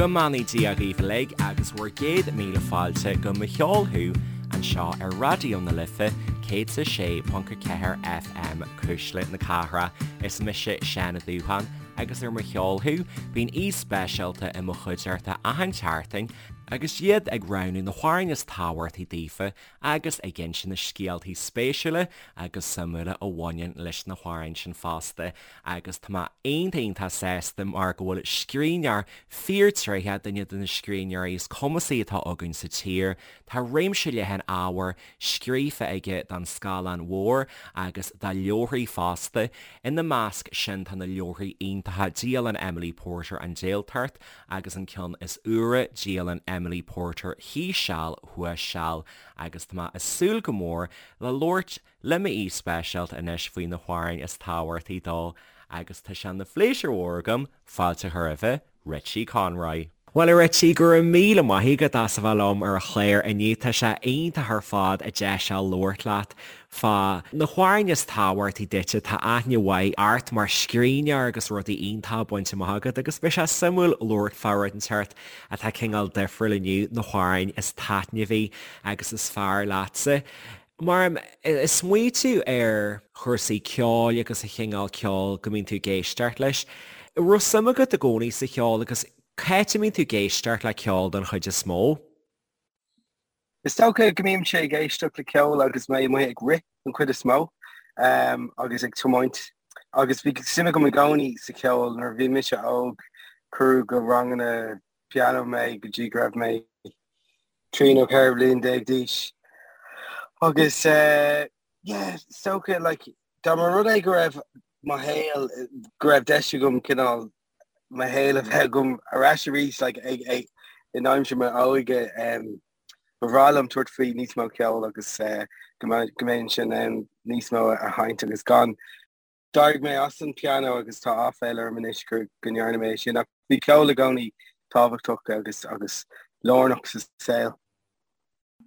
Go mbeannaí Dia dhaoibh uilig agus bhur gcéad míle fáilte go Mo Cheol Thú anseo ar Raidió na Life 106.4 FM, Cuisle na Cathrach. Is mise Seán Ó Dúcháin agus ar Mo Cheol Thú bíonn aoi speisialta i mo chuideachta achan tseachtain agus iad ag roghnú na hamhráin is tábhachtaí daofa agus ag inse na scéaltaí spéisiúla agus suimiúla a bhaineann leis na hamhráin sin fosta. Agus tá mé iontach iontach sásta mar go bhfuil scríbhneoir fíorthréitheach, duine de na scríbhneoirí is cumasaí atá againn sa tír, tá réimse leathan ábhair scríofa aige don scáileán mhór agus do leabharthaí fosta. Ina measc sin tá na leabharthaí iontacha Dialann Emily Porter, An Jailtacht agus an ceann is úire, Dialann Emily Porter, Thíos Seal, Thuas Seal agus tá mé ag súil go mór le labhairt le m'aoi speisialta anois faoi na hamhráin is tábhachtaí dó agus tá sé ina phléisiúr mhór agam fáilte a chur roimhe, Richie Conroy. Bhuel a Richie, go raibh míle maith agat as a bheith liom ar an chlár inniu. Tá sé iontach ar fad an deis seo labhairt leat fá na hamhráin is tábhachtaí duitse. Tá aithne mhaith ort mar scríbhneoir agus rudaí iontacha bainte amach agat agus beidh sé suimiúil labhairt fá rud inteacht atá cineál difriúil inniu, na hamhráin is taitneamhaí agus is fearr leatsa. Mar ag smaoitiú ar chúrsaí ceoil agus an chineál ceoil go mbíonn tú ag éisteacht leis, an raibh suim agat i gcónaí sa cheol agus cá háit a mbíonn tú ag éisteacht le ceol don chuid is mó? Is dócha go mbímse ag éisteacht le ceol agus mé amuigh ag rith don chuid is mó agus ag tiomáint agus bhí suim agam i gcónaí sa cheol. Nuair a bhí mise óg cuireadh go ranganna pianó mé go dtí go raibh mé 13 nó 14 bhliain d'aois. Agus yeah, is dócha like dá mba rud é go raibh mo shaol, go raibh deis agam cineál mo shaol a bheith agam ar ais arís like ag ag in aimsir m'óige um, ba bhreá liom tabhairt faoi níos mó ceoil agus uh, go mbeinn in ann níos mó a sheinnt agus gan D'éirigh mé as an pianó agus tá áiféala orm anois go ndearna mé é sin ach bhí ceol i gcónaí tábhachtach agus agus lárnach sa saol.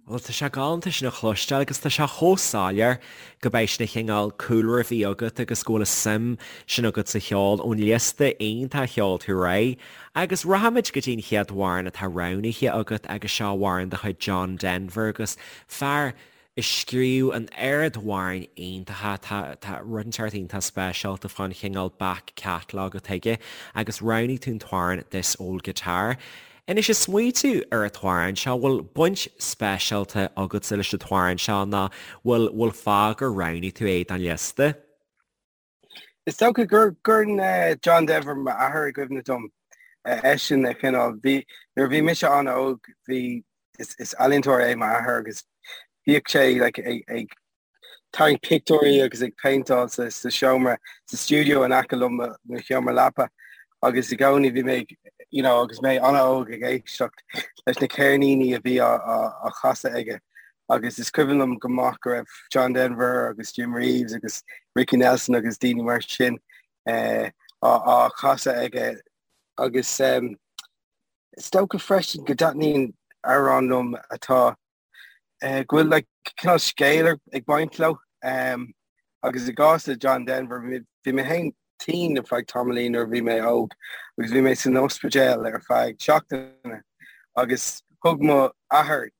Bhuel, tá sé galánta sin a chloisteáil agus tá sé chomh soiléir go mbeidh sin an chineál cúlra a bhí agat agus go bhfuil an suim sin agat sa cheol ón liosta iontach a sheol tú ar aghaidh. Agus rachaimid go dtí an chéad amhrán atá roghnaithe agat agus seo amhrán de chuid John Denver agus fear a scríobh an oiread amhráin iontacha, tá, tá rud inteacht iontach speisialta fán chineál back catalogue atá aige agus roghnaigh tú an t-amhrán This Old Guitar. Anois ag smaoitiú ar an t-amhrán seo, bhfuil baint speisialta agatsa leis an t-amhrán seo nó bhfuil, bhfuil fáth gur roghnaigh tú é don liosta? Is dócha go gcuireann John Denver m'athair i gcuimhne dom. Eisean a chineál, bhí, nuair a bhí mise an-óg, bhí, is, is ealaíontóir é m'athair agus bhíodh sé like ag, ag tarraingt pictiúirí agus ag péinteáil sa, sa seomra, sa stiúideo in aice liom, mo sheomra leapa agus i gcónaí bhí mé ag, you know, agus mé an-óg ag éisteacht leis na ceirníní a bhí á, á, á chasadh aige. Agus is cuimhin liom go maith go raibh John Denver agus Jim Reeves agus Ricky Nelson agus daoine mar sin á chasadh aige. Agus is dócha freisin go dtaitníonn amhráin liom atá, go bhfuil like cineál scéal ag baint leo. Agus i gcás le John Denver, bhí mé féin tinn ar feadh tamaillín nuair a bhí mé óg agus bhí mé san ospidéal ar feadh seachtaine agus thug mo athair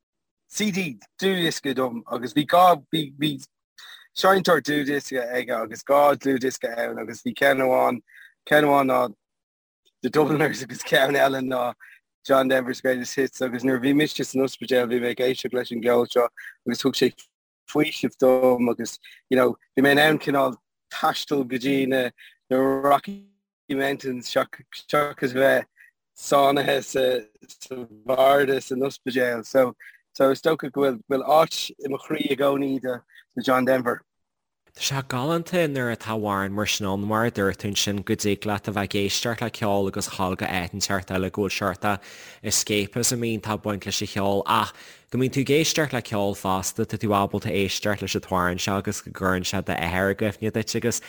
CD dlúthdhiosca dom agus bhí dhá bhí bhí seinnteoir dlúthdhiosca aige agus dhá dlúthdhiosca ann agus bhí ceann amháin ceann amháin ná The Dubliners agus ceann eile ná John Denver's Greatest Hits agus nuair a bhí mise san ospidéal bhí mé ag éisteacht leis an gceol seo agus thug sé faoiseamh dom agus you know bhí mé in ann cineál taisteal go dtí na na Rocky Mountains seachas bheith sáinnithe sa sa bharda san ospidéal. So so is dócha go bhfuil bhfuil áit i mo chroí i gcónaí do do John Denver. Tá sé galánta nuair atá amhrán mar sin ann, mar a dúirt tú ansin, go dtig leat a bheith ag éisteacht le ceol agus dhul go áit inteacht eile go bhfuil seort escapism iontach ag baint leis an cheol ach go mbíonn tú ag éisteacht le ceol fosta, tá tú ábalta éisteacht leis an t-amhrán seo agus go gcuireann sé d'athair i gcuimhne duit agus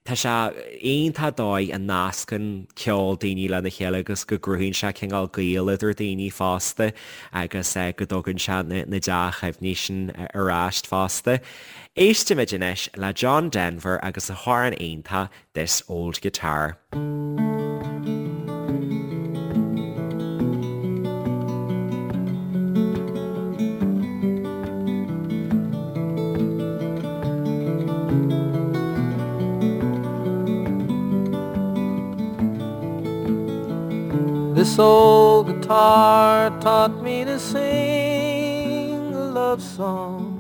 tá sé iontach dóigh a nascann ceol daoine lena chéile agus go gcruthaíonn sé cineál gaol idir daoine fosta agus go dtugann sé na dea-chuimhní sin ar ais fosta. Éistimid anois le John Denver agus a hamhrán iontach This Old Guitar. This old guitar taught me to sing a love song,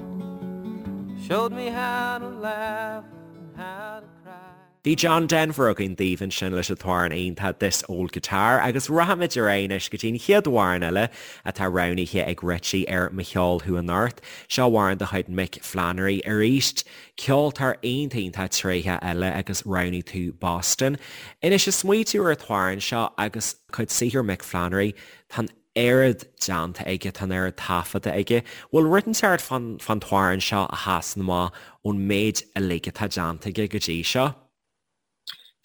showed me how to laugh and how to cry. Bhí John Denver againn daoibh ansin leis an t-amhrán iontach This Old Guitar agus rachaimid ar aghaidh anois go dtí an chéad amhrán eile atá roghnaithe ag Richie ar Mo Cheol Thú Anocht. Seo amhrán de chuid Mick Flannery arís, ceoltóir iontach iontach tréitheach eile agus roghnaigh tú Boston. Anois ag smaoitiú ar an t-amhrán seo agus cuid saothair Mick Flannery, tá an oiread déanta aige, tá an oiread taifeadta aige. Bhfuil rud inteacht fán t-amhrán seo a sheasann amach ón méid uilig atá déanta aige go dtí seo?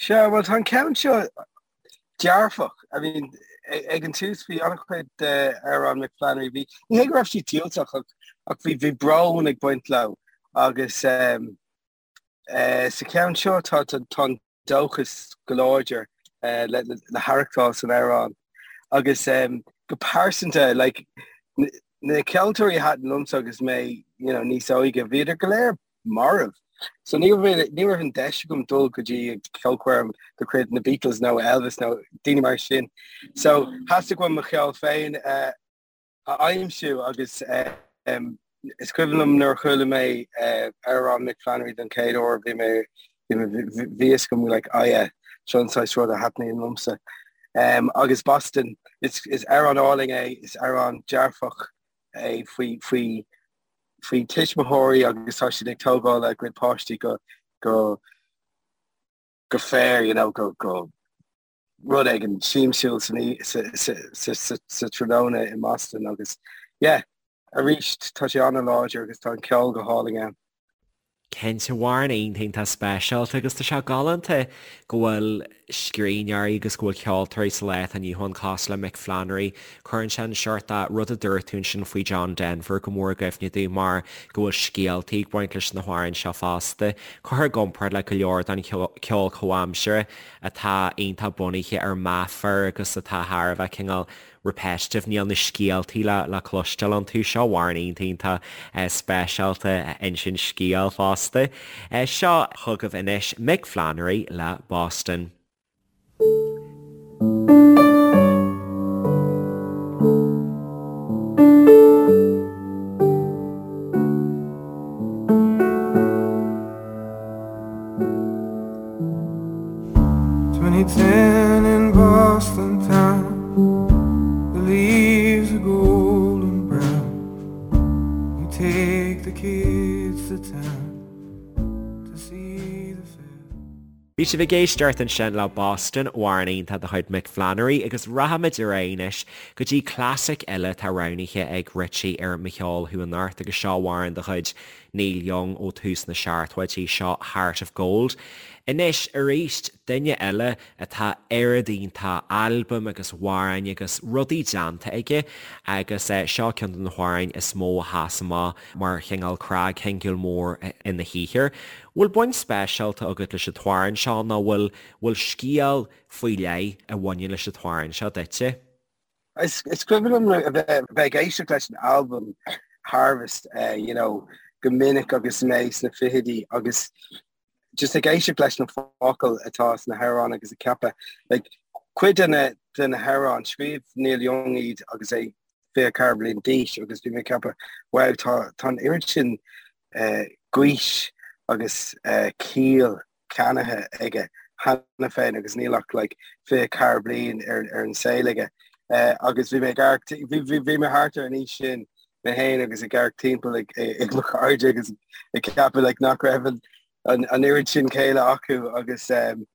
Sea, bhuel tá an ceann seo dearfach. I mean, ag an tús bhí an-chuid d'amhráin Mick Flannery, bhí, ní hé go raibh siad diúltach ach, ach bhí, bhí brón ag baint leo agus um, Sa cheann seo tá an dóchas go láidir le haireachtáil san amhrán agus go pearsanta like na ceoltóirí a thaitin liomsa agus mé you know níos óige bhíodar go léir marbh. So ní raibh ní raibh an deis agam dul go dtí ceolchoirm de chuid na Beatles nó Elvis nó daoine mar sin. So theastaigh uaim mo cheol féin a a aimsiú agus is cuimhin liom nuair a chuala mé amhrán Mick Flannery don chéad uair bhí mé bhí fhios agam like oh yeah seo an saghas rud a thaitníonn liomsa. Agus Boston is is amhrán álainn é, is amhrán dearfach é faoi faoi faoi tuismitheoirí agus tá siad ag tógáil a gcuid páistí go go go fair you know go go rud éigin siamsúil sa tráthnóna i mBoston agus yeah, arís tá sé an-láidir agus tá an ceol go hálainn ann. Cinnte, amhrán iontach iontach speisialta agus tá sé galánta go bhfuil scríbhneoirí agus go bhfuil ceoltóirí sa lá atá inniu ann cosúil le Mick Flannery. Cuireann sé an seort de rud a dúirt tú ansin faoi John Denver go mór i gcuimhne domh mar go bhfuil scéaltaí ag baint leis na hamhráin seo fosta. Curtha i gcomparáid le go leor den cheol comhaimseartha atá iontach bunaithe ar meafar agus atá thar a bheith cineál repetitive, níl na scéaltaí le le cloisteáil iontu. Seo amhrán iontach iontach speisialta a insíonn scéal fosta. Seo chugaibh anois Mick Flannery le Boston. 2010 in Boston town, the leaves are golden brown. We take the kids to town to see the fair. Bhí sibh ag éisteacht ansin le Boston, amhrán iontach de chuid Mick Flannery agus rachaimid ar aghaidh anois go dtí clasaic eile atá roghnaithe ag Richie ar Mo Cheol Thú Anocht agus seo amhrán de chuid Neil Young ó tús na seachtóidí, seo Heart of Gold. Anois, arís, duine eile atá oiread iontach albaim agus amhráin agus rudaí déanta aige agus seo ceann de na hamhráin is mó a sheas amach mar chineál cnagshingil mór ina shaothar. Bhfuil baint speisialta agat leis an t-amhrán seo nó bhfuil bhfuil scéal faoi leith a bhaineann leis an t-amhrán seo duitse? Is cuimhin liom a bheith ag éisteacht leis an albam Harvest you know go minic agus mé sna fichidí agus just ag éisteacht leis na focail atá sna hamhráin agus ag ceapadh like cuid de na de na hamhráin scríobh Neil Young iad agus é 24 bliain d'aois agus bhí mé ag ceapadh wow tá tá an oiread sin uh, gaois agus uh, ciall ceannaithe aige cheana féin agus níl ach like 24 bliain ar ar an saol aige. Uh, agus bhí mé ag amharc bhí bhí bhí mé thart ar an aois sin mé féin agus ag amharc timpeall ag ag mo chairde agus ag ceapadh like nach raibh an an an oiread sin céille acu agus um,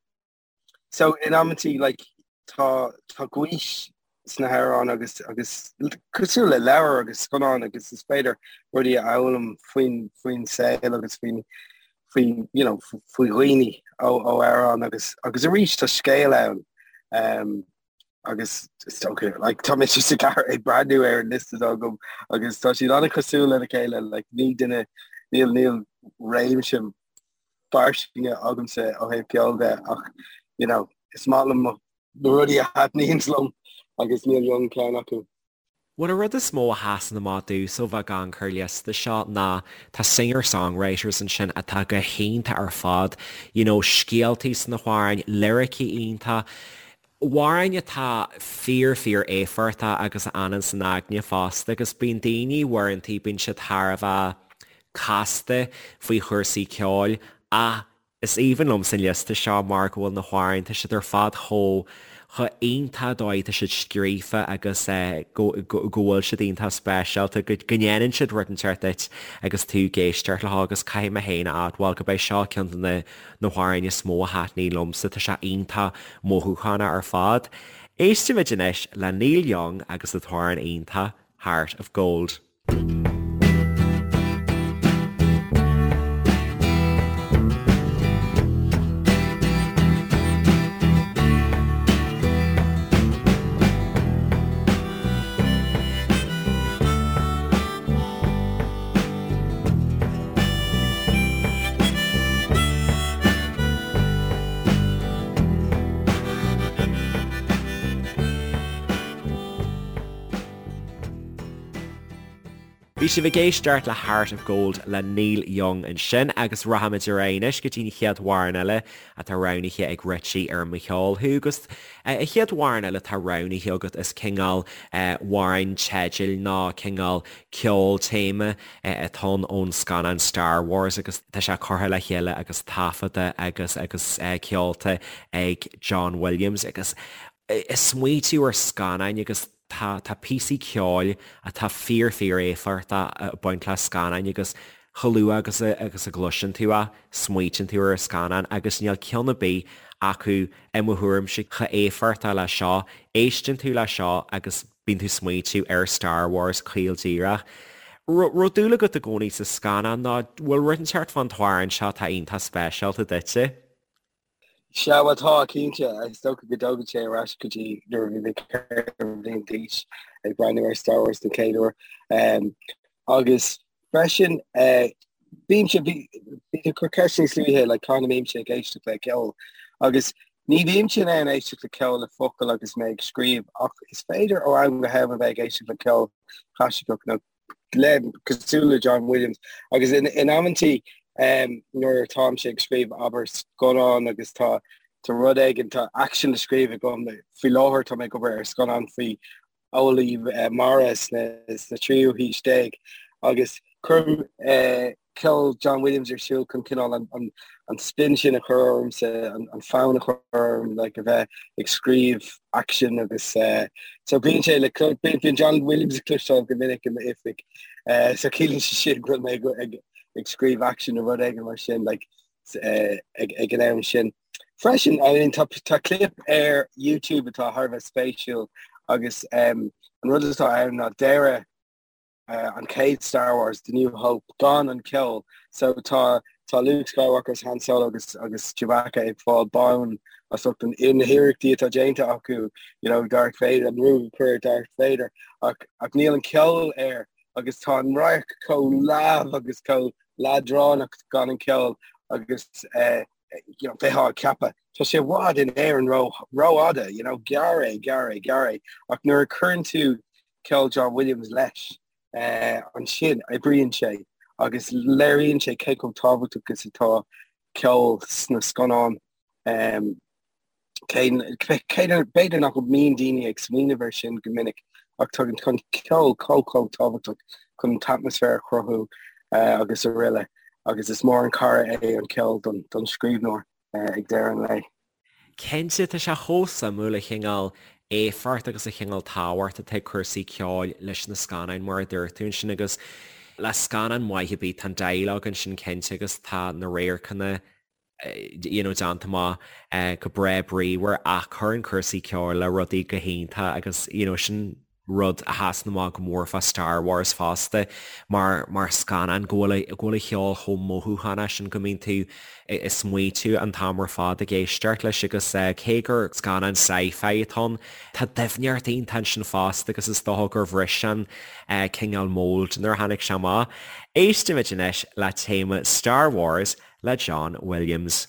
so in amantaí like tá tá gaois sna hamhráin agus agus cosúil le leabhar agus scannán agus is féidir rudaí a fhoghlaim faoin faoin saol agus faoin faoi you know faoi dhaoine ó ó amhrán agus agus arís tá scéal ann um, agus is dócha like tá mé just ag ag breathnú ar an liosta agam agus tá siad an-chosúil lena chéile like ní duine níl níl réimse fairsinge agamsa ó thaobh ceoil de ach you know is maith liom na rudaí a thaitníonn liom agus Neil Young ceann acu. Bhuel an rud is mó a sheasann amach domhsa ó bheith ag amharc ar an liosta seo ná tá singer-songwriters ansin atá go hiontach ar fad, you know scéaltaí sna hamhráin, liricí iontach. Amhráin atá fíor fíor éifeachtach agus a fhanann san aigne fosta agus bíonn daoine uaireantaí bíonn siad thar a bheith casta faoi chúrsaí ceoil ach is aoibhinn liomsa an liosta seo mar go bhfuil na hamhráin, tá siad ar fad chomh chomh iontach dóigh atá siad scríofa agus go go bhfuil siad iontach speisialta, go go ndéanann siad rud inteacht duit agus tú ag éisteacht leo agus caithfidh mé féin a admháil go b'é seo ceann de na na hamhráin is mó a thaitníonn liomsa, tá sé iontach mothúchánach ar fad. Éistimid anois le Neil Young agus an t-amhrán iontach Heart of Gold. Bhí sibh ag éisteacht le Heart of Gold le Neil Young ansin agus rachaimid ar aghaidh anois go dtí an chéad amhrán eile atá roghnaithe ag Richie ar Mo Cheol Thú agus an chéad amhrán eile atá roghnaithe agat is cineál amhrán teidil nó cineál ceol téama atá ann ón scannán Star Wars agus tá sé curtha le chéile agus taifeadta agus agus ceolta ag John Williams agus ag smaoitiú ar scannáin agus tá tá píosaí ceoil atá fíor fíor éifeachtach ag baint le scannáin agus chomh luath agus a agus a gcloiseann tú é smaoitíonn tú ar an scannán agus níl ceann ar bith acu i mo thuairimse chomh éifeachtach le seo. Éisteann tú le seo agus bíonn tú ag smaoitiú ar Star Wars caol díreach. Raibh dúil agat i gcónaí sa scannán nó bhfuil rud inteacht fán t-amhrán seo atá iontach speisialta duitse? Sea, bhuel tá, cinnte. Is dócha go dtógann sé ar ais go dtí nuair a bhí mé 4 bhliain d'aois ag breathnú ar Star Wars den chéad uair. Agus freisin, bímse, bhí tú ag cur ceist níos luaithe, like, cá mbímse ag éisteacht le ceol. Agus ní bhímse in ann éisteacht le ceol le focail agus mé ag scríobh, ach is féidir ó am go ham a bheith ag éisteacht le ceol clasaiceach nó le cosúil le John Williams. Agus in, in amantaí um, nuair atáimse ag scríobh abair scannán agus tá tá rud éigin, tá action le scríobh agam, faoi láthair tá mé ag obair ar scannán faoi eolaí mara sna tríú haois déag agus cuirim ceol John Williams ar siúl chun cineál an spin sin a chur ormsa, an fonn a chur orm like a bheith ag scríobh action agus so bíonn sé le bíonn John Williams le cloisteáil go minic i m'oifig so ciallaíonn sé sin go bhfuil mé ag scríobh action nó rud éigin mar sin like ag an am sin. Freisin, I mean, tá, tá clip ar YouTube atá thar a bheith spéisiúil agus um, an rud atá ann ná deireadh uh, an chéad Star Wars, The New Hope, gan an ceol. So tá, tá Luke Skywalker agus Han Solo agus, agus Chewbacca ag fáil bonn as ucht an, na hiarrachtaí atá déanta acu, you know, Darth Vader, an ruaig a chur ar Darth Vader, ach, ach níl an ceol air agus tá an radharc chomh leamh agus chomh leadránach gan an ceol agus uh, you know, bheifeá ag ceapadh, tá sé i bhfad in Éirinn ró, rófhada, you know, gearr é, gearr é, gearr é. Ach nuair a chuireann tú ceol John Williams leis, eh, ansin oibríonn sé agus léiríonn sé cé chomh tábhachtach is atá ceol sna scannáin. Um, cé, cé, b'fhéidir nach mbíonn daoine ag smaoineamh air sin go minic ach tá an ceol chomh chomh tábhachtach chun an t-atmaisféar a chruthú eh, agus araile. Agus is mór an cara é an ceol don, don scríbhneoir eh, ag deireadh an lae. Cinnte, tá sé chomh suimiúil an cineál éifeacht agus an cineál tábhacht atá ag cúrsaí ceoil leis na scannáin mar a dúirt tú ansin agus le scannán maith ar bith tá an dialogue ansin cinnte agus tá na radharcanna you know, déanta amach go breá bríomhar ach cuireann cúrsaí ceoil le rudaí go hiontach agus you know, sin rud a sheasann amach go mór fá Star Wars fosta mar mar scannán go bhfuil go bhfuil an cheol chomh mothúchánach sin go mbíonn tú ag smaoitiú an t-am ar fad ag éisteacht leis agus cé gur scannán sci-fi atá ann tá doimhneacht iontach ansin fosta agus is dócha gur bhris an cineál mold nuair a tháinig sé amach. Éistimid anois le téama Star Wars le John Williams.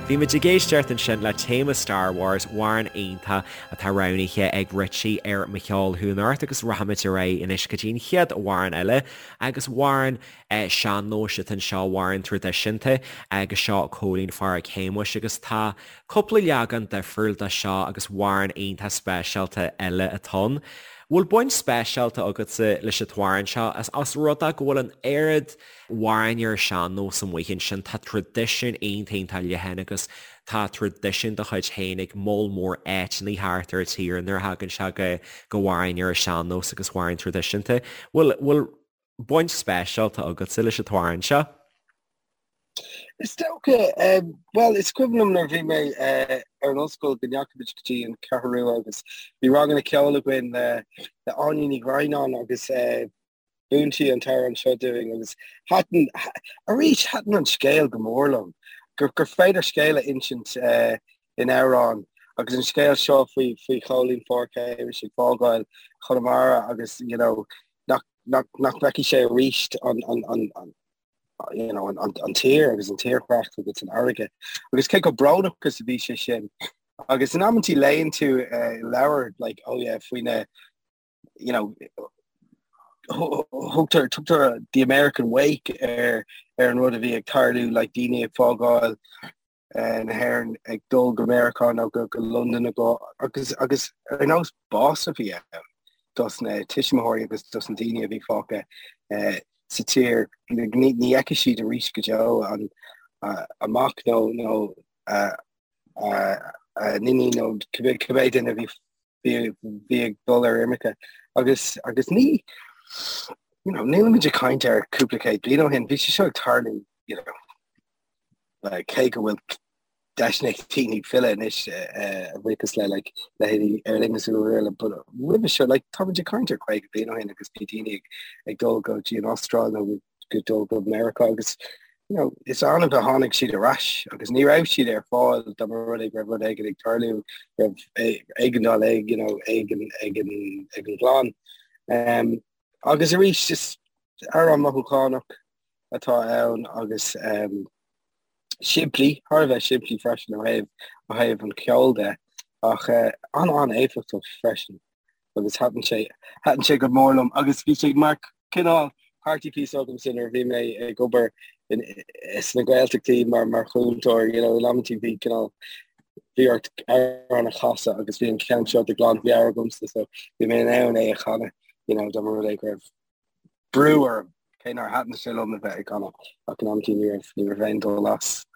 Bhí muid ag éisteacht ansin le téama Star Wars, amhrán iontach atá roghnaithe ag Richie ar Mo Cheol Thú Anocht agus rachaimid ar aghaidh anois go dtí an chéad amhrán eile agus amhrán sean-nóis atá anseo, amhrán traidisiúnta agus seo Cóilín Phádraic Shéamuis agus tá cúpla leagan difriúil de seo agus amhrán iontach speisialta eile atá ann. Bhfuil baint speisialta agatsa leis an t-amhrán seo as rud é go bhfuil an oiread amhráin ar an sean-nós amuigh ansin. Tá traidisiún iontach iontach leathan agus tá traidisiún dá chuid féin ag moll mór áiteanna thart ar an tír nuair a thagann sé go go hamhráin ar an sean-nós agus amhráin traidisiúnta. Bhfuil bhfuil baint speisialta agatsa leis an t-amhrán seo? Is dócha, bhuel, is cuimhin liom nuair a bhí mé ar an ollscoil go ndeachaigh muid go dtí an Cheathrú Rua agus bhí ranganna ceoil againn le le Áine Ní Dhroighneáin agus Mhúin sí an t-amhrán seo dúinn agus thaitin, arís, thaitin an scéal go mór liom, gur, gur féidir scéal a insint in amhrán agus an scéal seo faoi, faoi Chóilín Phádraic Shéamuis ag fágáil Chonamara agus, you know, nach, nach, nach bhfeicfidh sé arís an, an, an, an, you know, an, an, an tír agus an tírdhreach agus an fharraige. Agus cé chomh brónach is a bhí sé sin. Agus in amantaí léann tú uh, leabhar, like, oh yeah, faoi na, you know, thugtar tugtar the American Wake ar ar an rud a bhí ag tarlú like daoine ag fágáil eh, na hÉireann ag dul go Meiriceá nó go go Londain go agus agus ar nós bás a bhí ann dos na tuismitheoirí agus dos na daoine a bhí fágtha eh, sa tír ní ní fheicfidh siad arís go deo an a mac nó nó a a n-iníon nó cibé cibé duine a bhí bhí ag dul ar imirce agus agus ní you know, nílimid ag caint ar cúpla céad bliain ó shin, bhí sé seo ag tarlú you know, like, cé go bhfuil deiseanna ag daoine filleadh anois eh, a bhuíochas le like, leithéidí Aer Lingus agus araile, but roimhe seo like, táimid ag caint ar 50 bliain ó shin agus bhí daoine ag, ag dul go dtí an Astráil nó go dul go Meiriceá agus you know, is annamh a tháinig siad ar ais agus ní raibh siad ar fáil dá mba rud é go raibh rud éigin ag tarlú, raibh éigeandáil ag, you know, ag an, ag an, ag an gclann. Um, agus arís is amhrán mothúchánach atá ann agus um, simplí, thar a bheith simplí freisin ó thaobh, ó thaobh an cheoil de, ach uh, an-an-éifeachtach freisin. agus thaitin sé, thaitin sé go mór liom agus bhí sé mar cineál party piece agamsa nuair a bhí mé ag obair in, sna Gaeltachtaí mar, mar chúntóir, you know, in amantaí bhí cineál, bhí ort amhrán a chasadh agus bhí an ceann seo de ghlanmheabhair agamsa so bhí mé in ann é a chanadh, you know, dá mba rud é go raibh brú orm, cé nár thaitin sé liom a bheith ag canadh ach in amantaí ní raibh, ní raibh aon dul as.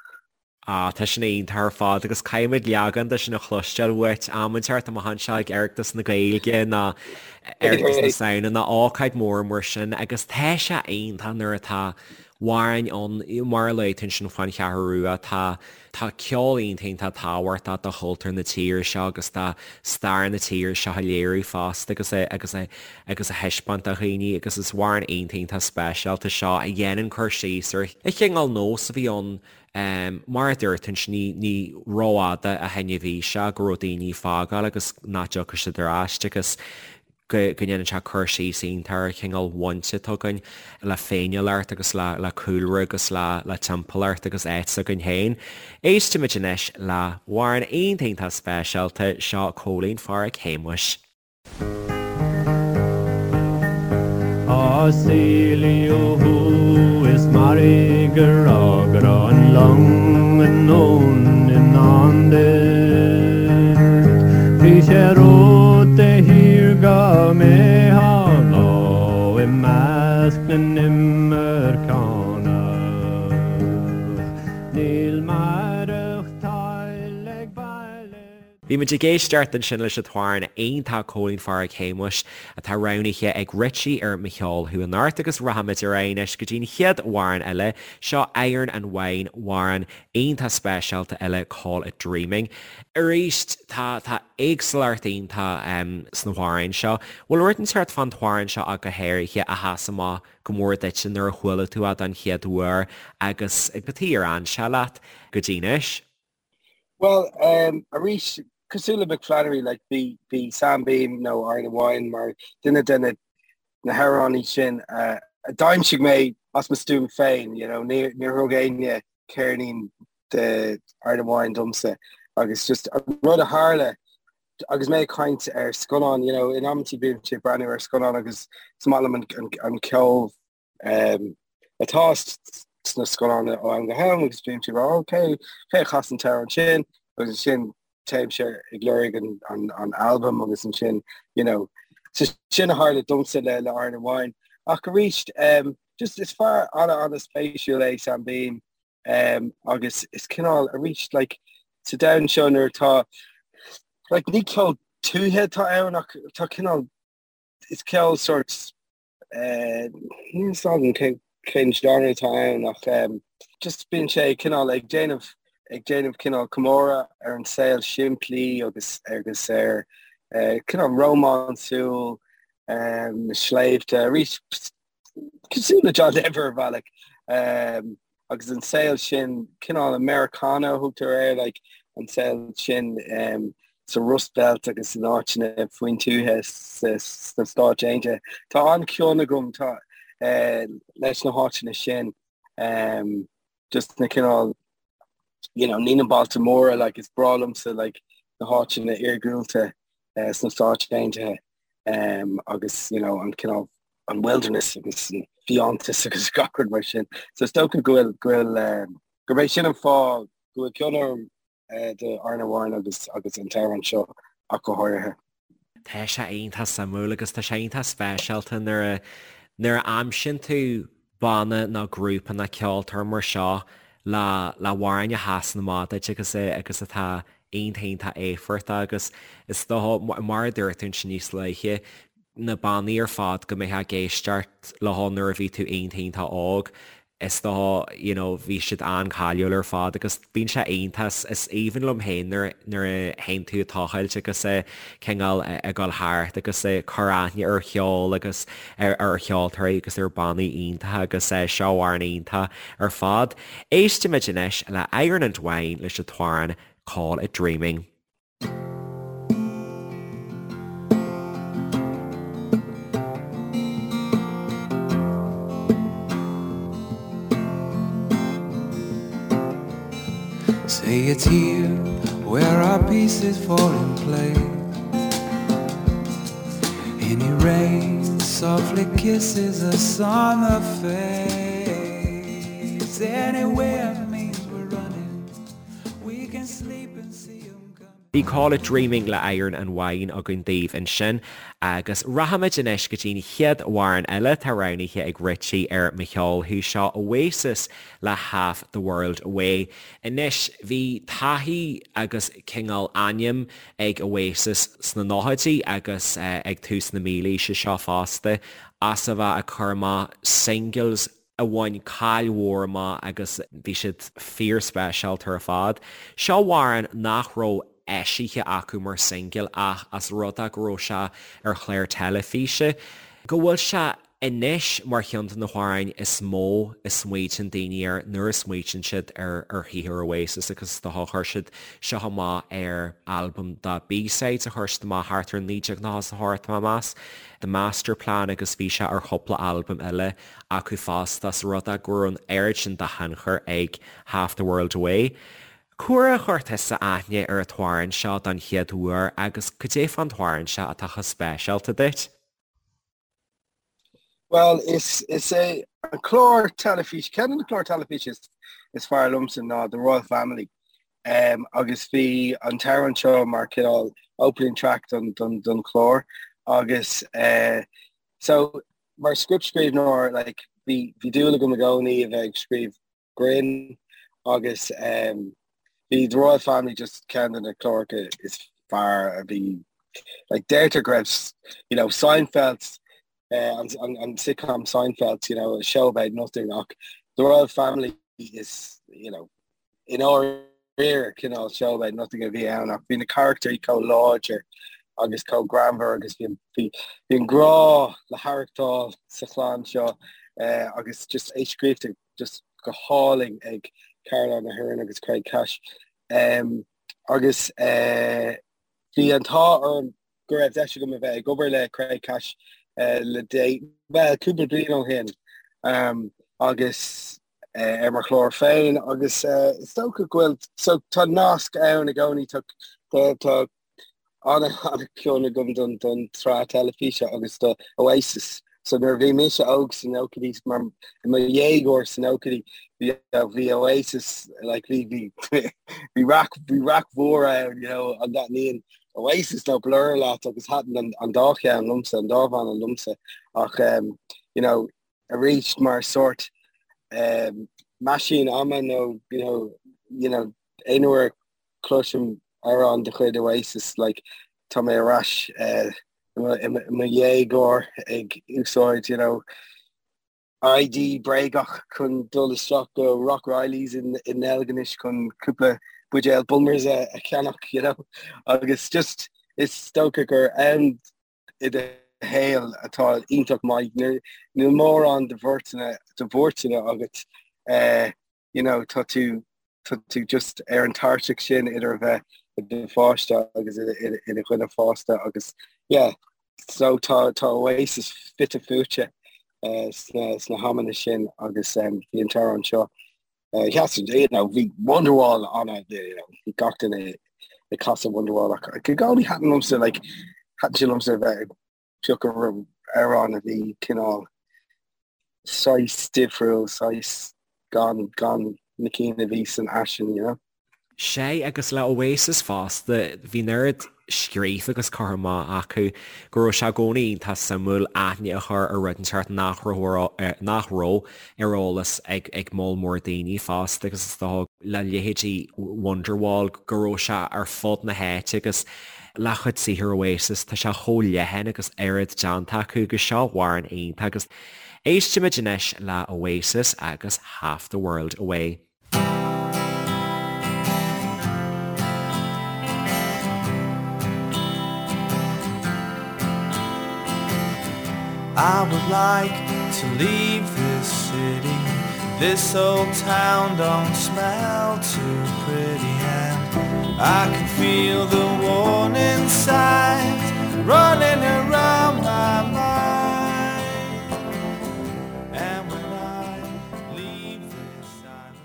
Ah, tá sin iontach ar fad agus caithfimid leagan de sin a chloisteáil uait am inteacht amach anseo ag Oireachtas na Gaeilge nó Oireachtas na Samhna nó ócáid mór mar sin agus tá sé iontach nuair atá amhráin ann mar a luaigh tú ansin faoin Cheathrú Rua tá tá ceol iontach iontach tábhachtach do chultúr na tíre seo agus do stair na tíre seo a léiriú fosta agus a agus a agus a thaispeáint do dhaoine agus is amhrán iontach iontach speisialta seo a dhéanann cur síos ar an chineál nós a bhí ann Mar a dúirt tú ansin, ní, ní rófhada ó shin a bhí sé go raibh daoine ag fágáil agus nach dtiocfadh siad ar ais agus go, go ndéanann sé cur síos iontach ar an chineál bhaint atá againn le féiniúlacht agus le, le cúlra agus le, le timpeallacht agus áit s'againn féin. Éistimid anois le hamhrán iontach iontach speisialta, seo Cóilín Pháraic Shéamuis. Á saolaíodh thú is mairg a rá go raibh an long anonn i ndán duit. Bhí sé romhat de shíor go mbeifeá lá i measc na n-imirceánach. Níl maireachtáil ag baile. Bhí muid ag éisteacht ansin leis an t-amhrán iontach Cóilín Pháraic Shéamuis atá roghnaithe ag Richie ar Mo Cheol Thú Anocht agus rachaimid ar aghaidh anois go dtí an chéad amhrán eile, seo Iron and Wine, amhrán iontach speisialta eile Call It Dreaming. Arís, tá tá éagsúlacht iontach sna hamhráin seo. Bhfuil rud inteacht fán t-amhrán seo ach go háirithe a sheas amach go mór duitse nuair a chuala tú é don chéad uair agus cad chuige ar fhan sé leat go dtí anois? Bhuel, um, arís, cosúil le Mick Flannery, like, bhí, bhí Sam Beam nó Iron and Wine mar duine de na, na hamhránaí sin uh, a d'aimsigh mé as mo stuaim féin, you know, níor, níor thug éinne ceirnín. de Iron and Wine domsa agus just an rud a tharla agus mé ag caint ar scannán, you know, in amantaí bímse ag breathnú ar scannán agus is maith liom an, an, an ceol um, atá sna scannáin ó am go ham agus bímse ag rá ok, cé a chas an t-amhrán sin agus ansin téimse ag lorg an, an, an album agus ansin, you know, so sin a tharla domsa le, le Iron and Wine. Ach arís, um, just is fear an-an-spéisiúil é Sam Beam Um, agus is cineál arís like, sa domhan seo nuair atá like, ní ceol tuaithe atá ann ach tá cineál is ceol sort uh, níl a fhios agam cén cén genre atá ann ach um, just bíonn sé cineál ag déanamh ag déanamh cineál comóradh ar an saol simplí agus agus ar uh, cineál rómánsúil um, na sléibhte arís cosúil le John Denver ar bhealach um, agus an saol sin cineál Americana a thugtar air like, an saol sin um, sa Rust Belt agus in áiteanna faoin tuaithe sna Stáit Aontaithe. Tá an-chion agam tá, uh, leis na háiteanna sin um, just na cineál you know, ní na bailte móra like, is breá liomsa like, na háiteanna iargúlta uh, sna Stáit Aontaithe um, agus you know, an cineál an wilderness agus an fiántas agus gach rud mar sin. So is dócha go bhfuil go bhfuil um, gurb é sin an fáth go bhfuil cion orm uh, do Iron and Wine agus agus an t-amhrán seo ach go háirithe. Tá sé iontach suimiúil agus tá sé iontach speisialta nuair a nuair a aimsíonn tú banna nó grúpa nó ceoltóir mar seo le le hamhráin a sheasann amach duit agus agus atá iontach iontach éifeachtach agus is dócha mar a dúirt tú ansin níos luaithe na bannaí ar fad go mbeifeá ag éisteacht leo nuair a bhí tú iontach iontach óg is dócha you know bhí siad an-cháiliúil ar fad agus bíonn sé iontach is aoibhinn liom féin nuair nuair a théann tú ag tochailt agus cineál ag dul thart agus ag cur aithne ar cheol agus ar ar cheoltóirí agus ar bannaí iontacha agus seo amhrán iontach ar fad. Éistimid anois le Iron and Wine leis an t-amhrán Call It Dreaming. Say it's here where our pieces fall in place. Any rain softly kisses us on the face. Anywhere means we're running. We can sleep and see 'em coming. Bhí Call It Dreaming le Iron and Wine againn daoibh ansin agus rachaimid anois go dtí'n chéad amhrán eile atá roghnaithe ag Richie ar Mo Cheol Thú, seo Oasis le Half the World Away. Anois bhí taithí agus cineál ainm ag Oasis sna nóchaidí agus ag tús na mílaoise seo fosta as a bheith ag cur amach singles a bhain cáil mhór amach agus bhí siad fíorspeisialta ar fad. Seo amhrán nach raibh eisithe acu mar singil ach as rud é go raibh sé ar chlár teilifíse, go bhfuil sé anois mar cheann de na hamhráin is mó a smaoitíonn daoine air nuair a smaoitíonn siad ar ar shaothar Oasis agus is dócha chuir siad seo amach ar albam de B-sides a chuir siad amach thart ar 1998 tá mé ag meas, The Masterplan agus bhí sé ar chúpla albam eile acu fosta as rud é go raibh an oiread sin de thionchar ag Half the World Away. Cá huair a chuir tusa aithne ar an t-amhrán seo don chéad uair agus cad é fán t-amhrán seo atá chomh speisialta duit? Bhuel, is is é an clár teilifíse, ceann de na cláir teilifíse is, is fearr liomsa ná The Royal Family. Um, agus bhí an t-amhrán seo mar cineál opening track don, don, don chlár agus uh, so Mar scriptscríbhneoir, like, bhí, bhí dúil agam i gcónaí a bheith ag scríobh grinn agus um, bhí The Royal Family just ceann de na cláracha is fearr a bhí like, deirtear go raibh, you know, Seinfeld, uh, an, an, an sitcom Seinfeld, you know, a show about nothing ach The Royal Family is, you know, I ndáiríre cineál show about nothing a bhí ann ach bhí na carachtair chomh láidir agus chomh greannmhar agus bhí bhí an grá le haireachtáil sa chlann seo eh, agus just é scríofa just go hálainn ag Caroline Aherne agus Craig Cash. Um, agus eh, bhí an t-ádh orm go raibh deis agam a bheith ag obair le Craig Cash eh, le dé well cúpla bliain ó shin um, agus. ar mo chlár féin agus is dócha go bhfuil so tá nasc ann i gcónaí tá tá an-chion agam don don tsraith teilifíse agus do Oasis. So nuair a bhí mise óg sna nóchaidí mar i mo dhéagóir sna nóchaidí bhí bhí Oasis like bhí bhí bhí raic bhí raic mhór ann you know an dtaitníonn Oasis nó Blur leat agus thaitin an an dá cheann liomsa an dá bhanna liomsa ach um, you know arís mar sórt um, meaisín ama nó you know you know aon uair a chloisim amhrán de chuid Oasis like tá mé ar ais uh, i mo dhéagóir ag úsáid you know ID bréagach chun dul isteach go Rock Reilly's in in Deilginis chun cúpla buidéal Bulmers a, a cheannach you know agus just is dócha gur am i do shaol atá iontach maith níl mórán de bhuairteanna de bhuairteanna agat uh, you know tá tú tá tú just ar an tairseach sin idir a bheith i do pháiste agus i do dhuine fásta agus yeah so tá tá Oasis fite fuaite uh, sna sna hamanna sin agus um, bhí an t-amhrán seo uh, sheas you know bhí Wonderwall an you know bhí gach duine ag casadh Wonderwall ach i gcónaí thaitin liomsa like thaitin sé liomsa a bheith ag piocadh amhrán a bhí cineál saghas difriúil, saghas gan, gan na cinn a bhí san fhaisean, you know. Sea, agus le Oasis fosta, bhí an oiread scríofa agus curtha amach acu go raibh sé i gcónaí iontach suimiúil aithne a chur ar rud inteacht nach raibh, nach raibh ar eolas ag, ag moll mór daoine fosta agus is dócha le leithéidí Wonderwall go raibh sé ar fud na háite agus Le cuid saothar Oasis, tá sé chomh leathan agus oiread déanta acu agus seo amhrán iontach agus éistimid anois le Oasis agus Half the World Away. I would like to leave this city This old town don't smell too pretty and I can feel the warning signs running around my mind And when I leave this island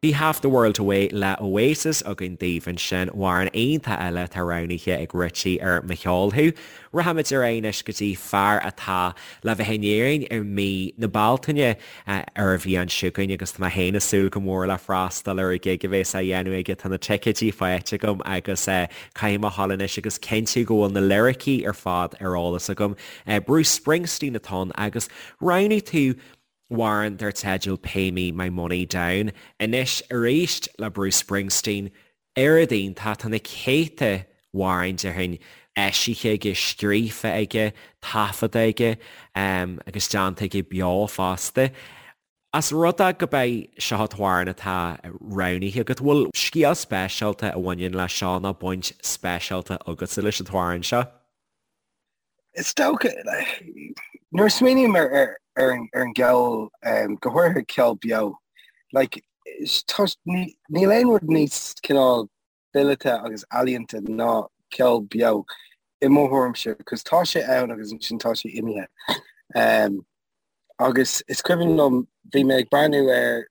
Bhí Half the World Away le Oasis againn daoibh ansin, amhrán iontach eile atá roghnaithe ag Richie ar Mo Cheol Thú. Rachaimid ar aghaidh anois go dtí fear atá le bheith in Éirinn i mí na Bealtaine ar an bhliain seo chugainn agus tá mé féin ag súil go mór le freastal ar an gig a bhéas á dhéanamh aige. Tá na ticéidí faighte agam agus caithfidh mé a ghabháil anois agus cinntiú go bhfuil na liricí ar fad ar eolas agam. Bruce Springsteen atá ann agus roghnaigh tú amhrán dar teideal Pay Me My Money Down. Anois arís le Bruce Springsteen, Oiread iontach, tá na céadta amhrán déarfainn eisithe aige, scríofa aige, taifeadta aige agus déanta aige beo fosta. As rud é gurb é seo an t-amhrán atá roghnaithe agat, bhfuil scéal speisialta a bhaineann leis seo nó baint speisialta agatsa leis an t-amhrán seo? Is dócha, nuair a smaoiním ar ar an gceol, go háirithe ceol beo, like, níl aon rud níos cineál fileata agus ealaíonta ná ceol beo i mo thuairimse, cos tá sé ann agus ansin tá sé imithe. Agus is cuimhin liom, bhí mé ag breathnú ar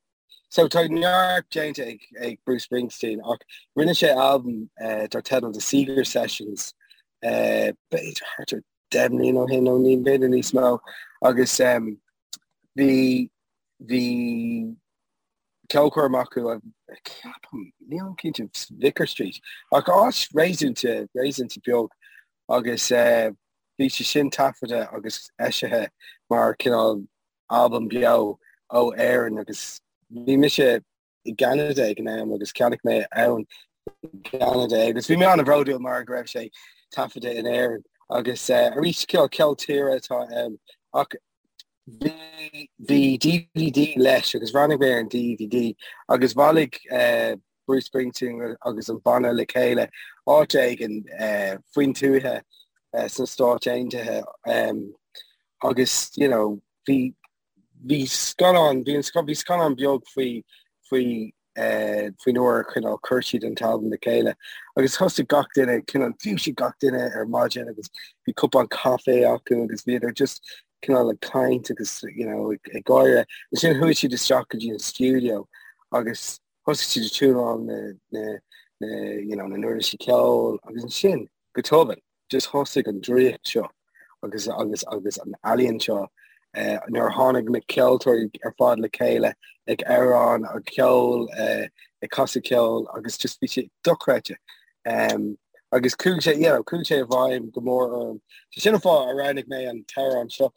So tá neart déanta ag, ag Bruce Springsteen ach rinne sé albam uh, dar teideal The Seeger Sessions uh, b'fhéidir thart ar 10 mbliana ó shin nó ní b'fhéidir níos mó agus um, bhí bhí ceolchoirm acu ceapaim nílim cinnte Vicar Street ach áit réasúnta réasúnta beag agus uh, bhí sé sin taifeadta agus eisithe mar cineál albam beo ó Éirinn agus bhí mise i gCeanada ag an am agus cheannaigh mé ann i gCeanada é agus bhí mé an-bhródúil mar go raibh sé taifeadta in Éirinn agus eh, arís ceol ceol tíre atá ann ach bhí bhí DVD leis agus bhreathnaigh mé ar an DVD agus bhailigh eh, Bruce Springsteen agus an banna le chéile áit éigin eh, faoin tuaithe eh, sna Stáit Aontaithe um, agus you know bhí bhí scannán bhí an bhí scannán beag faoi faoi faoin uair a cineál chuir siad an t-albam le chéile agus thosaigh gach duine, cineál dhúisigh gach duine ar maidin agus bhí cupán caife acu agus bhíodar just cineál ag caint agus you know ag gáire. Ansin chuaigh siad isteach go dtí an stiúideo agus thosaigh siad ag tiúnáil na na na you know na n-uirlisí ceoil agus ansin go tobann just thosaigh an draíocht seo agus agus agus an ealaíon seo eh, nuair a tháinig na ceoltóirí ar fad le chéile ag amhrán ag ceol eh, ag casadh ceoil agus just bhí sé dochreidte. Um, agus chuaigh sé you know, chuaigh sé i bhfeidhm go mór orm. So sin an fáth a roghnaigh mé an t-amhrán seo.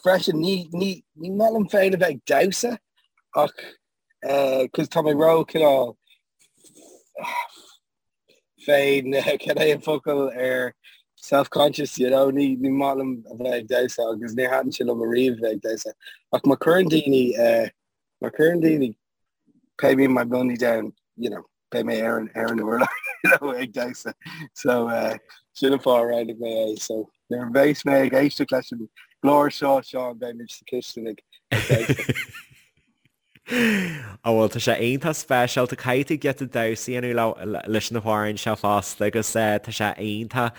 Freisin ní ní ní maith liom féin a bheith ag damhsa ach eh, 'cause tá mé ró cineál féin cad é an focal ar self-conscious, you know, ní ní maith liom a bheith ag damhsa agus ní thaitin sé liom ariamh a bheith ag damhsa. Ach má chuireann daoine eh, má chuireann daoine pay me my money down, you know, beidh mé ar an ar an urlár you know, ag damhsa. So eh, sin an fáth a roghnaigh mé é. So nuair a bheas mé ag éisteacht leis an gclár seo, Seán, beidh mé sa chistin ag ag damhsa. Á bhuel tá sé iontach speisialta, caithfidh tú giota damhsa a dhéanamh leis na hamhráin seo fosta agus tá sé iontach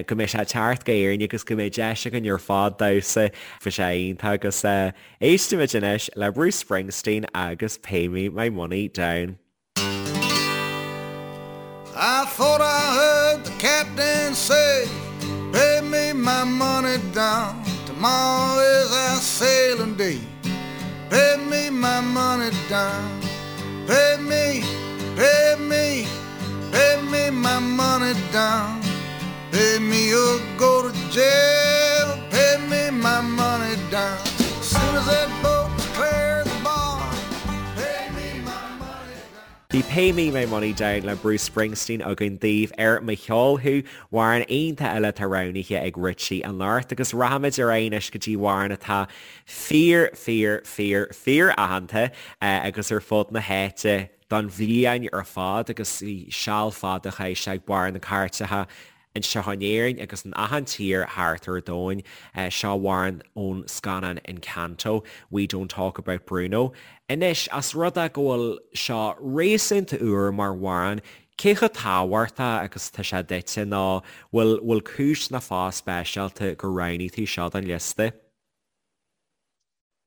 go mbeidh sé ag teacht go Éirinn agus go mbeidh deis againn ar fad damhsa, bhí sé iontach agus éistfimid anois le Bruce Springsteen agus Pay Me My Money Down. I thought I heard the captain say Pay me my money down Tomorrow is our sailing day Pay me my money down Pay me, pay me, pay me my money down Pay me or go to jail Pay me my money down Soon as that boat clears the bar Pay me my money down Bhí Pay Me My Money Down le Bruce Springsteen againn daoibh ar Mo Cheol Thú, amhrán iontach eile atá roghnaithe ag Richie anocht agus rachaimid ar aghaidh anois go dtí amhrán atá fíor, fíor, fíor, fíor aitheanta agus ar fud na háite don bhliain ar fad agus bhí seal fada chaith sé ag barr na cairteacha anseo in Éirinn agus in achan tír thart ar domhain. Seo amhrán ón scannán Encanto, We Don't Talk About Bruno. Anois, as rud é go bhfuil seo réasúnta úr mar amhrán, cé chomh tábhachtach agus atá sé duitse nó bhfuil bhfuil cúis nó fáth speisialta gur roghnaigh tú seo don liosta?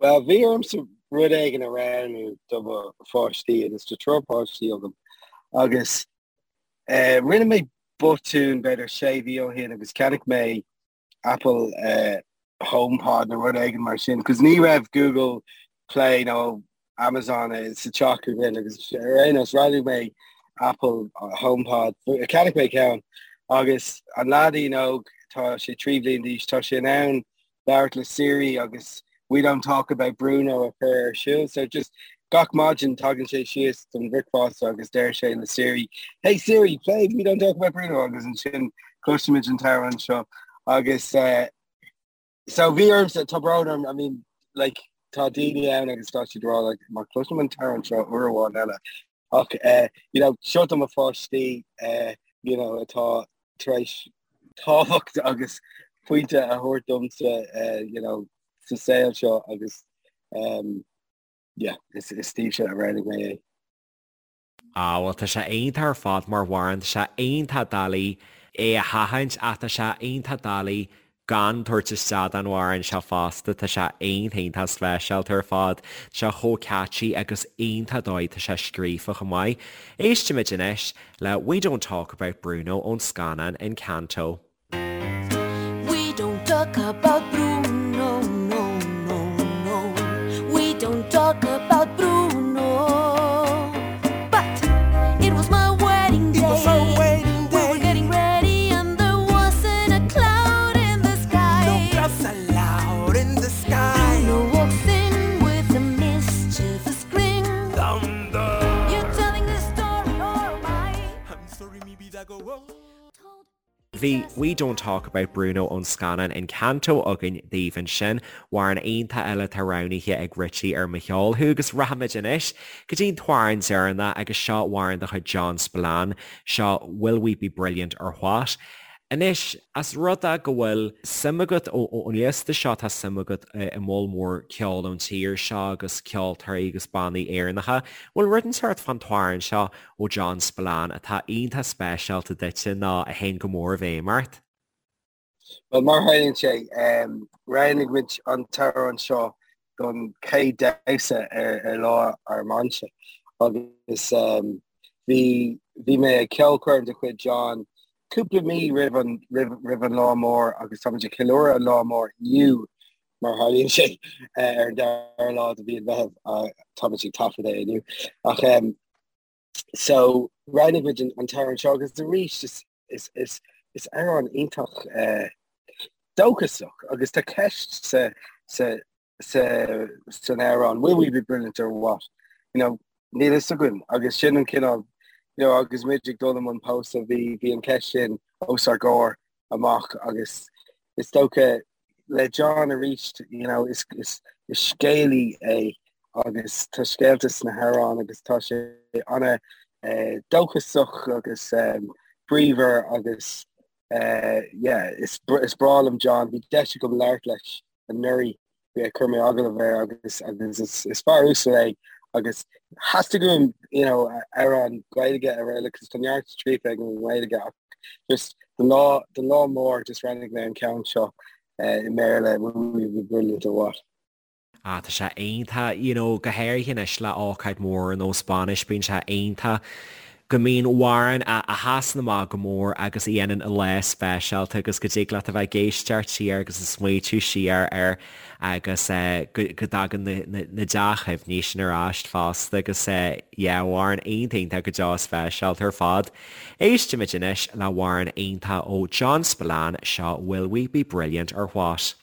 Bhuel, bhí ormsa rud éigin a roghnú do mo pháistí agus tá triúr páistí agam agus eh, rinne mé botún b'fhéidir sé mhí ó shin agus cheannaigh mé Apple eh, HomePod nó rud éigin mar sin, cos ní raibh Google Play nó Amazon eh, sa teach againn agus ar aon nós roghnaigh mé Apple HomePod, cheannaigh mé ceann agus an leaidín óg tá sé 3 bhliain d'aois, tá sé in ann labhairt le Siri agus We don't talk about Bruno a chur ar siúl. So just gach maidin tagann sé síos don bhricfeasta agus deir sé le Siri, Hey Siri, play We don't talk about Bruno agus ansin cloisimid an t-amhrán seo agus uh, so bhí ormsa tá brón orm, I mean like tá daoine ann agus tá siad ag rá like má chloisim an t-amhrán seo uair amháin eile ach uh, you know seo do mo pháistí uh, you know atá tar éis tábhacht agus pointe a thabhairt domsa uh, you know, sa saol seo agus um, yeah, is, is daoibhse a roghnaigh mé é. Ah, bhuel tá sé iontach ar fad mar amhrán, tá sé iontach doiligh é a sheachaint ach tá sé iontach doiligh gan tabhairt isteach don amhrán seo fosta, tá sé iontach iontach speisialta ar fad, tá sé chomh catchy agus iontach dóigh tá sé scríofa chomh maith. Éistimid anois le We Don't Talk About Bruno ón scannán Encanto. We don't talk about Bruno, no, no, no. We don't talk about Bruno. But it was my wedding day. It was our wedding We were day. getting ready and there wasn't a cloud in the sky. No clouds allowed in the sky. Bruno walks in with a mischievous grin. Thunder. You're telling the story or am I? I'm sorry, mi vida go on. Told Bhí We Don't Talk About Bruno ón scannán Encanto againn daoibh ansin, amhrán iontach eile atá roghnaithe ag Richie ar Mo Cheol Thú agus rachaimid anois go dtí an t-amhrán deireanach agus seo amhrán de chuid John Spillane, seo Will We Be Brilliant or What? Anois, as rud é go bhfuil suim agat ón liosta seo, tá suim agat i moll mór ceol ón tír seo agus ceoltóirí agus bannaí Éireannacha, bhfuil rud inteacht fán t-amhrán seo ó John Spillane atá iontach speisialta duitse nó a théann go mór i bhfeidhm ort? Bhuel, mar a tharlaíonn sé, roghnaigh muid an t-amhrán seo don chéad damhsa ar lá ár mbainse agus bhí bhí mé ag ceolchoirm de chuid John cúpla mí roimh an roimh roimh an lá mór agus táimid ag ceiliúradh an lá mór inniu mar a tharlaíonn sé ar an dara lá de mhí an Mheithimh táimid ag taifead é inniu ach so roghnaigh muid an t-amhrán seo agus arís is is is is amhrán iontach dóchasach agus tá ceist sa sa sa san amhrán will we be brilliant or what? You know, níl fhios againn agus sin an cineál you know, agus muid ag dul i mbun pósta bhí bhí an ceist sin os ár gcomhair amach agus is dócha le John arís you know, is, is, is scéalaí é agus tá scéalta sna hamhráin agus tá sé ana eh, dóchasach agus um, bríomhar agus eh, yeah, is, is breá liom John, bhí deis agam labhairt leis anuraidh chuir mé agallamh air agus agus is, is fear uasal é agus theastaigh uaim you know, amhrán Gaeilge a roghnú agus tá neart scríofa aige i nGaeilge ach just don lá don lá mór just roghnaigh mé an ceann seo uh, i mBéarla will we be brilliant or what. Ah, tá sé iontach, you know, go háirithe anois le ócáid mhór ar nós bainis, bíonn sé iontach go mbíonn amhrán a sheasann amach go mór agus a dhéanann an lá speisialta agus go dtig leat a bheith ag éisteacht siar agus ag smaoitiú siar air agus go dtagann na dea-chuimhní sin ar ais fosta agus yeah, amhrán iontach iontach go deo speisialta ar fad. Éistimid anois le hamhrán iontach ó John Spillane, seo Will We Be Brilliant or What?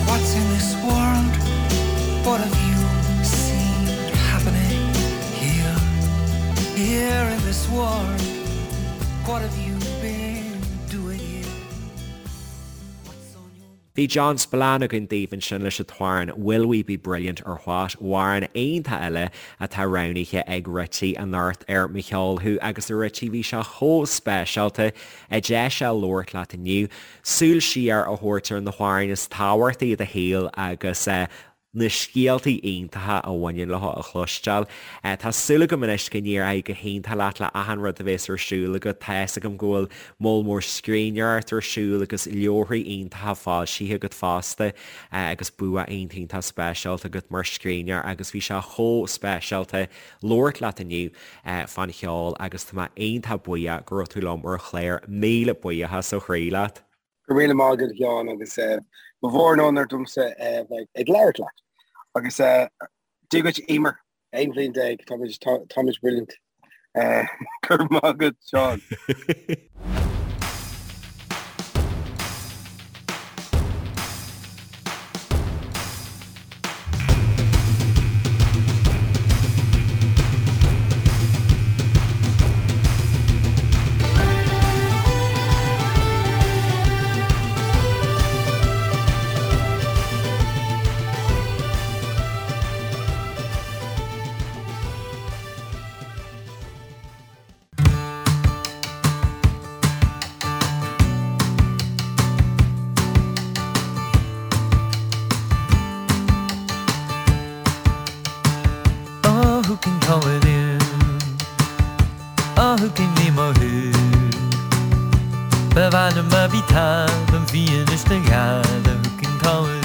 What's in this world? What have you seen happening here? Here in this world, what have you been doing here? What's on your Bhí John Spillane againn daoibh ansin leis an t-amhrán Will We Be Brilliant or What, amhrán iontach eile atá roghnaithe ag Richie anocht ar Mo Cheol Thú agus a Richie bhí sé chomh speisialta an deis seo labhairt leat inniu, súil siar a thabhairt ar na hamhráin is tábhachtaí i do shaol agus na scéaltaí iontacha a bhaineann leo a chloisteáil. Tá súil agam anois go n-éireoidh go hiontach leat le achan rud a bhéas ar siúl agat. Tá fhios agam go bhfuil moll mór scríbhneoireacht ar siúl agus leabharthaí iontacha foilsithe agat fosta agus bua iontach iontach speisialta agat mar scríbhneoir agus bhí sé chomh speisialta labhairt leat inniu fán cheol agus tá mé iontach buíoch go raibh tú liom ar an chlár. Míle buíochas ó chroí leat. Go raibh míle maith agat a Sheáin agus ba mhór an onóir domsa bheith ag labhairt leat. Agus Dia duit Emer, 11 bhliain, táimid táimid brilliant. Go raibh maith agat Seán. Oh, who can call it in? Oh, who can name a who? Ba mhaith liom a bhí talamh bhí anois na gheala, who can call it in?